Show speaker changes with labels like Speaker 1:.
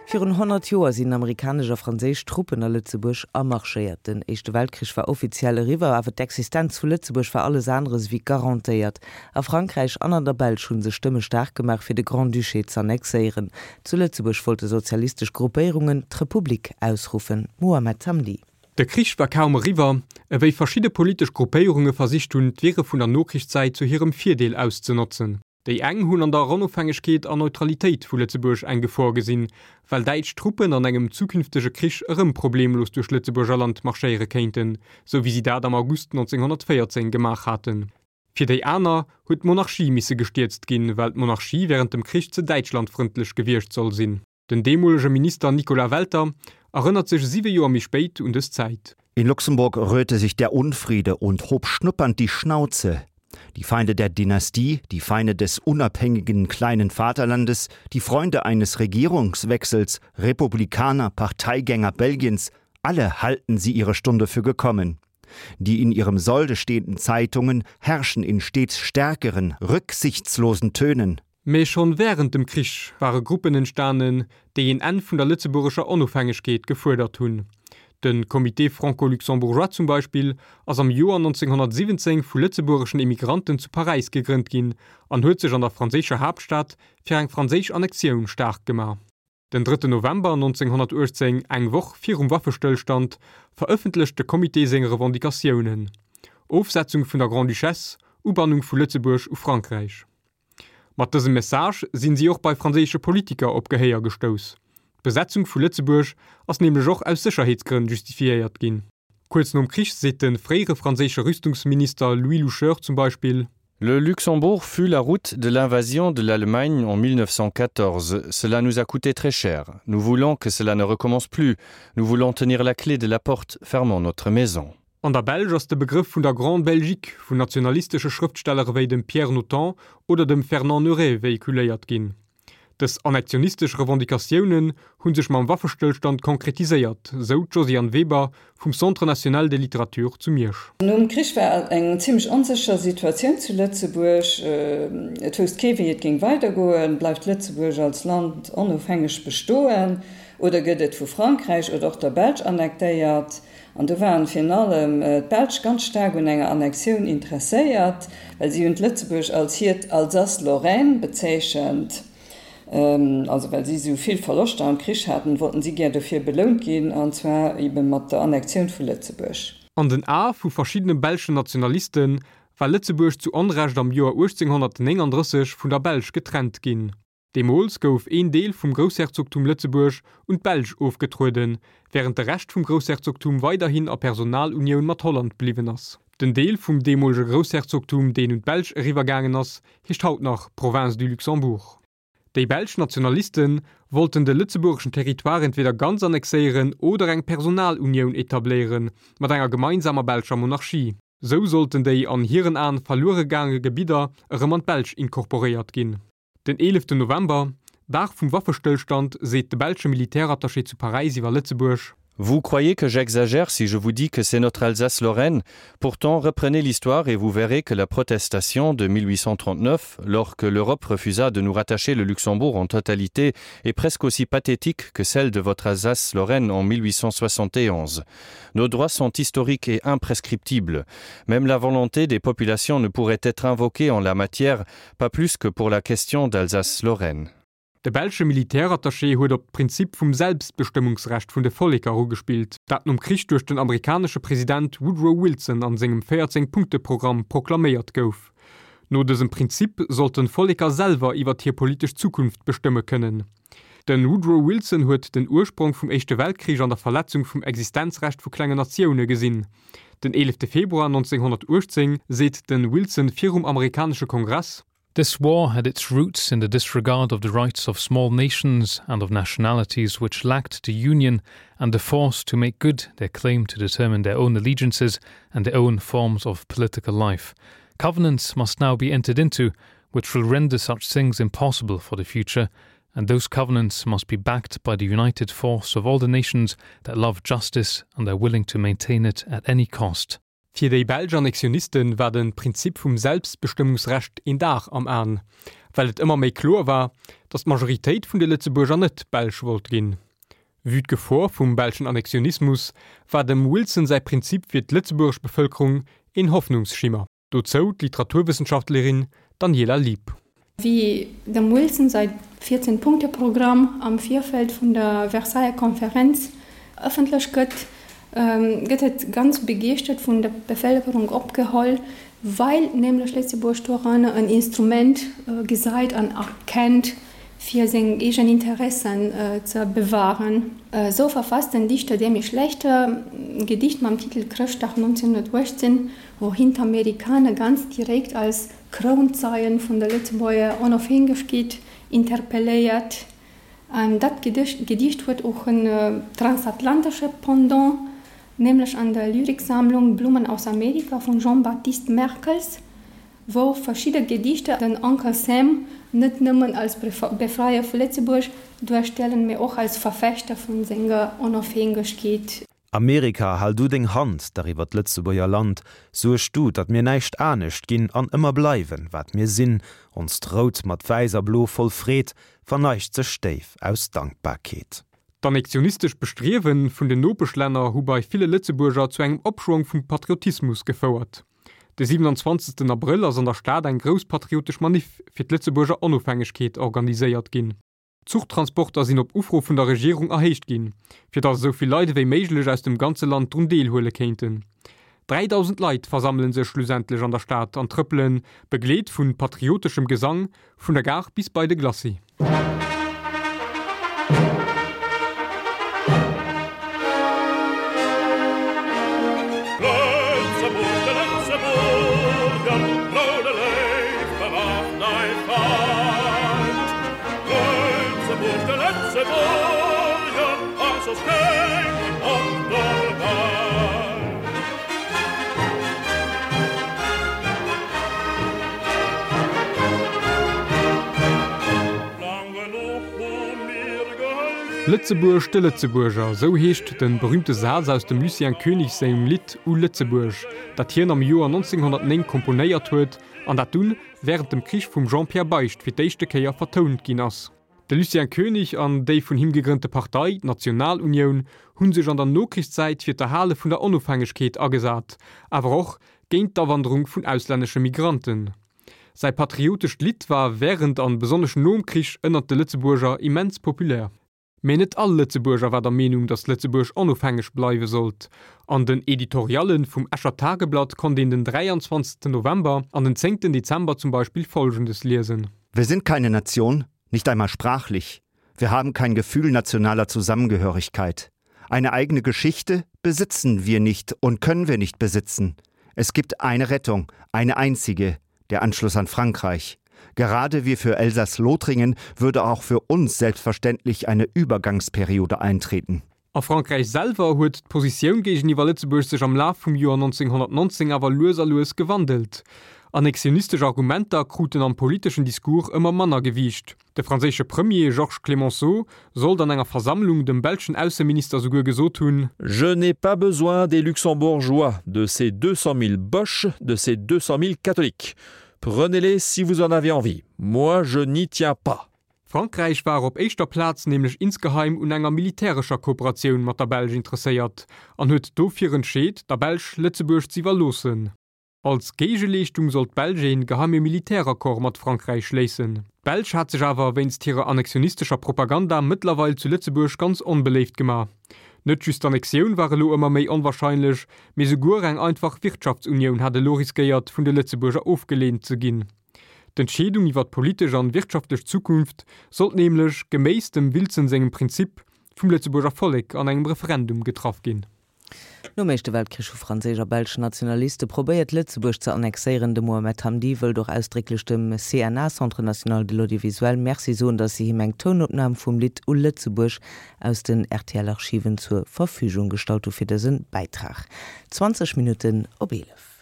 Speaker 1: Virun 100 Joer sinn amerikanesch a franséisch Truppen a Lëtzebuerg amarschéiert. Den Éischte Weltkrich war offiziell eriwwer, awer d'Existenz vu Lëtzebuerg war alles aneres ewéi garantéiert. A Frankräich an an der Belsch hu sech Stëmme staark gemaach, fir de Grand-Duché z'annexéieren. Zu Lëtzebuerg wollte sozialistesch Gruppéierungen d'Republik ausruffen. Mohamed Hamdi.
Speaker 2: De Krich war kaum eriwwer, ewéi verschidde politesch Gruppéierunge versicht hunn, d'Wirre vun der Nokrichszäit zu hirem Virdeel auszenotzen. Déi eng hunn an der Onofhängegkeet an Neutralitéit vu Lëtzebuerg eng Gefor gesinn, well däitsch Truppen an engem zukünftege Krich erëm problemlos duerch Lëtzebuerger Land marschéiere kéinten, sou wéi si dat am August 1914 gemaach haten. Fir déi aner huet d'Monarchie misse gestierzt ginn, well d'Monarchie wärend dem Krich ze däitschlandfrëndlech gewiescht soll sinn. Den deemolege Minister Nicolas Welter erënnert sech siwe Joer méi spéit un dës Zäit.
Speaker 3: In Luxemburg rührte sich der Unfriede und hob schnuppernd die Schnauze. Die Feinde der Dynastie, die Feinde des unabhängigen kleinen Vaterlandes, die Freunde eines Regierungswechsels, Republikaner, Parteigänger Belgiens, alle halten sie ihre Stunde für gekommen. Die in ihrem Solde stehenden Zeitungen herrschen in stets stärkeren, rücksichtslosen Tönen.
Speaker 2: Mee schonn wärend dem Krich ware Gruppen entstanen, déi een Enn vun der lëtzebuergescher Onofhängegkeet gefuerdert hunn. De Comité franco-luxembourgeois zum Beispill ass am Joer 1917 vu lëtzebuergeschen Emigranten zu Paräis gegrënnt ginn an huet sech an der franséischer Haaptstad fir eng franséisch Annexioun staark gemaach. Den drëtten November 1918, eng Woch virum Waffestëllstand, verëffentlecht de Comité seng Revendicatiounen, Ofsetzung vun der Grande-Duchesse, Ubannung vu Lëtzebuerg u Frankräich. Mat dësem Message sinn si och bei franséische Politiker op Gehéier gestouss. D'Besetzung vu Lëtzebuerg ass nämlech och aus Sécherheetsgrënn justifiéiert ginn. Kuerz nom Krich seet de fréiere franséische Rüstungsminister Louis Loucheur zum Beispill.
Speaker 4: Le Luxembourg fut la route de l'invasion de l'Allemagne en 1914. Cela nous a coûté très cher. Nous voulons que cela ne recommence plus. Nous voulons tenir la clé de la porte fermant notre maison.
Speaker 2: An der Belsch ass de Begrëff vun der Grande Belgique vun nationalistesche Schrëftsteller ewéi dem Pierre Notant oder dem Fernand Neuray véhiculéiert ginn. Dës annektionistesch Revendicatiounen hu sech mam Waffestëllstand konkretiséiert, sou d'Josiane Weber vum Centre national de littérature zu Miersch.
Speaker 5: Nom Krich war eng zimmlech onsécher Situatioun zu Lëtzebuerg. Et wousst kee wéi et géing weidergoen. Bleift Lëtzebuerg als Land onofhängeg bestoen oder gëtt et vu Frankräich oder och der Belsch annektéiert? An do waren virun allem d'Belsch ganz staark un enger Annexioun interesséiert, well si hunn d'Lëtzebuerg als hiert Alsace-Lorraine bezeechent. Also well si esou vill Verloschter am Krich haten, wollten si gär dofir belount ginn, an zwar ebe mat der Annexioun vu Lëtzebuerg.
Speaker 2: An den Ae vu verschiddene belschen Nationaliste war Lëtzebuerg zu Onrecht am Joer 1839 vun der Belsch getrennt ginn. Deemools gouf een Deel vum Groussherzogtum Lëtzebuerg un d'Belsch ofgetrueden, wärend de Rescht vum Groussherzogtum weiderhin a Personalunioun mat Holland bliwwen ass. Den Deel vum deemolege Groussherzogtum, deen un d'Belsch eriwwergaangen ass, heescht haut nach Province du Luxembourg. Déi belsch Nationaliste wollten de lëtzebuergeschen Territoire entweder ganz annexéieren oder eng Personalunioun etabléiere mat enger gemeinsamer belscher Monarchie. Sou sollten déi an hiren Aen verluere gaange Gebidder erëm an d'Belsch inkorporéiert ginn. Den 11 November, Dag vum Waffestëllstand, seet de belsche Militärattaché zu Paräis iwwer Lëtzebuerg.
Speaker 4: Vous croyez que j'exagère si je vous dis que c'est notre Alsace-Lorraine Pourtant, reprenez l'histoire et vous verrez que la protestation de 1839, lors que l'Europe refusa de nous rattacher le Luxembourg en totalité, est presque aussi pathétique que celle de votre Alsace-Lorraine en 1871. Nos droits sont historiques et imprescriptibles. Même la volonté des populations ne pourrait être invoquée en la matière, pas plus que pour la question d'Alsace-Lorraine.
Speaker 2: De belsche Militärattaché huet op d'Prinzip vum Selbstbestëmmungsrecht vun de Volleker ugespillt, dat nom Krich duerch den amerikanesche President Woodrow Wilson an sengem 14 Punkte-Programm proklaméiert gouf. No dësem Prinzip sollten d'Volleker selwer iwwert hir politesch Zukunft bestëmme kënnen. De Woodrow Wilson huet den Ursprong vum Éischte Weltkrich an der Verletzung vum Existenzrecht vu klengen Natioune gesinn. Den 11 Februar 1918 seet de Wilson virum amerikanesche Kongress.
Speaker 6: This war had its roots in the disregard of the rights of small nations and of nationalities which lacked the union and the force to make good their claim to determine their own allegiances and their own forms of political life. Covenants must now be entered into which will render such things impossible for the future, and those covenants must be backed by the united force of all the nations that love justice and are willing to maintain it at any cost.
Speaker 2: Fir déi belsch Annexioniste war de Prinzip vum Selbstbestëmmungsrecht een Dar am An, well et ëmmer méi kloer war, datt d'Majoritéit vun de Lëtzebuerger net Belsch wollt ginn. Vue d'Gefor vum belschen Annexionismus war dem Wilson säi Prinzip fir d'lëtzebuergesch Bevëlkerung een Hoffnungsschimmer. Dozou d'Literaturwëssenschaftlerin Daniela Lieb.
Speaker 7: Wéi dem Wilson säi 14 Punkte-Programm am Virfeld vun der Versailler Konferenz ëffentlech gëtt, gëtt et ganz begeeschtert vun der Bevëlkerung opgeholl, well nämlech Lëtzebuerg doranner en Instrument gesäit an erkennt, fir seng eegen Interessen ze bewahren. Esou verfasst den Dichter Demy Schlechter e Gedicht mam Titel Chrëschtdag 1918, wou hien d'Amerikaner ganz direkt als Krounzeien vun der Lëtzebuerger Onofhängegkeet interpelléiert. An dat Gedicht huet och en transatlantesche Pendant, nämlech an der Lyriksammlung Blumen aus Amerika vum Jean-Baptiste Merkels, wou verschidde Gedichter den Uncle Sam net nëmmen als Befreier vu Lëtzebuerg duerstellen, mee och als Verfechter vun senger Onofhängegkeet.
Speaker 8: Amerika, hal du deng Hand dach iwwer d'Lëtzebuerger Land, suerg du, datt mir näischt anescht ginn an ëmmer bleiwen, wat mir sinn, onst Rout mat Wäiss a Blo voll Freed verneigt sech déif aus Dankbarkeet.
Speaker 2: D'annexionistesch Bestriewe vun den Nopeschlänner hu bei ville Lëtzebuerger zu engem Opschwong vum Patriotismus gefouert. De 27 Abrëll ass an der Stad eng grouss patriotesch Maniff fir d'Lëtzebuerger Onofhängegkeet organiséiert ginn. D'Zuchtransporter sinn op Ufro vun der Regierung erhéicht ginn, fir datt esou vill Leit ewéi méiglech aus dem ganze Land drun deelhuele kéinten. 3.000 Leit versammele sech schlussendlech an der Stad an trëppelen, begleet vu patrioteschem Gesang, vun der Gare bis bei de Glacis. Lëtzebuerg de Lëtzebuerger, esou heescht de berüümte Saz aus dem Lucien Koenig sengem Lidd U Lëtzebuerg, dat hien am Joer 1909 komponéiert huet an dat dunn wärend dem Krich vum Jean-Pierre Beicht fir d'éischte Kéier vertount ginn ass. De Lucien Koenig an déi vun him gegrënnte Partei, d'Nationalunioun, hu sech an der Nokrichszäit fir d'Erhale vun der Onofhängegkeet agesat, awer och géint d'Awanderung vun auslännesche Migranten. Säi patriotescht Lidd war wärend an besonnesch nom Krich ënnert de Lëtzebuerger immens populär. Mee net all Lëtzebuerger war der Meenung, datt Lëtzebuerg onofhängeg bleiwe sollt. An den Editoriallen vum Escher Tageblatt konnt een den 23 November an den 10 Dezember zum Beispill Folgendes liesen.
Speaker 3: Wir sind keine Nation, nicht einmal sprachlich. Wir haben kein Gefühl nationaler Zusammengehörigkeit. Eine eigene Geschichte besitzen wir nicht und können wir nicht besitzen. Es gibt eine Rettung, eine einzige, der Anschluss an Frankreich. Gerade wie für Elsass-Lothringen würde auch für uns selbstverständlich eine Übergangsperiode eintreten.
Speaker 2: A Frankräich selwer huet d'Positioun géigeniwwer Lëtzebuerg sech am Laf vum Joer 1919 awer lues a lues gewandelt. Annexionistesch Argumenter kruten am politeschen Discours ëmmer manner Gewiicht. De franséische Premier Georges Clemenceau sollt an enger Versammlung dem belschen Ausseminister souguer gesot hunn.
Speaker 9: Je n'ai pas besoin des Luxembourgeois, de ces 200 000 Boches, de ces 200 000 Catholiques. Prenez-les si vous en avez envie. Moi, je n'y tiens pas.
Speaker 2: Frankräich war op éischter Plaz nämlech insgeheim un enger militärescher Kooperatioun mat der Belsch interesséiert an huet dofir entscheet, der Belsch Lëtzebuerg z'iwwerloossen. Als Géigeleeschtung sollt d'Belsch een geheime Militäraccord mat Frankräich schléissen. D'Belsch hat sech awer wéinst hirer annexionistescher Propaganda mëttlerweil zu Lëtzebuerg ganz onbeléift gemaach. Net just d'Annexioun war elo ëmmer méi onwahrscheinlech, mee souguer eng einfach Wirtschaftsunioun hat elo riskéiert vun de Lëtzebuerger ofgeleent ze ginn. D'Entscheedung iwwer d'politesch an wirtschaftlech Zukunft sollt nämlech, geméiss dem Wilson sengem Prinzip, vum Lëtzebuerger Vollek an engem Referendum getraff ginn.
Speaker 1: Nom Éischte Weltkrich hu franséisch a belsch Nationaliste probéiert, Lëtzebuerg ze annexéieren. De Mohamed Hamdi wëllt och ausdrécklech dem CNA, Centre National de l'Audiovisuel, Merci soen, datt si him eng Tounopnam vum Lidd U Lëtzebuerg aus den RTL-Archiven zur Verfügung gestallt hu fir dëse Bäitrag. 20 Minutten op 11.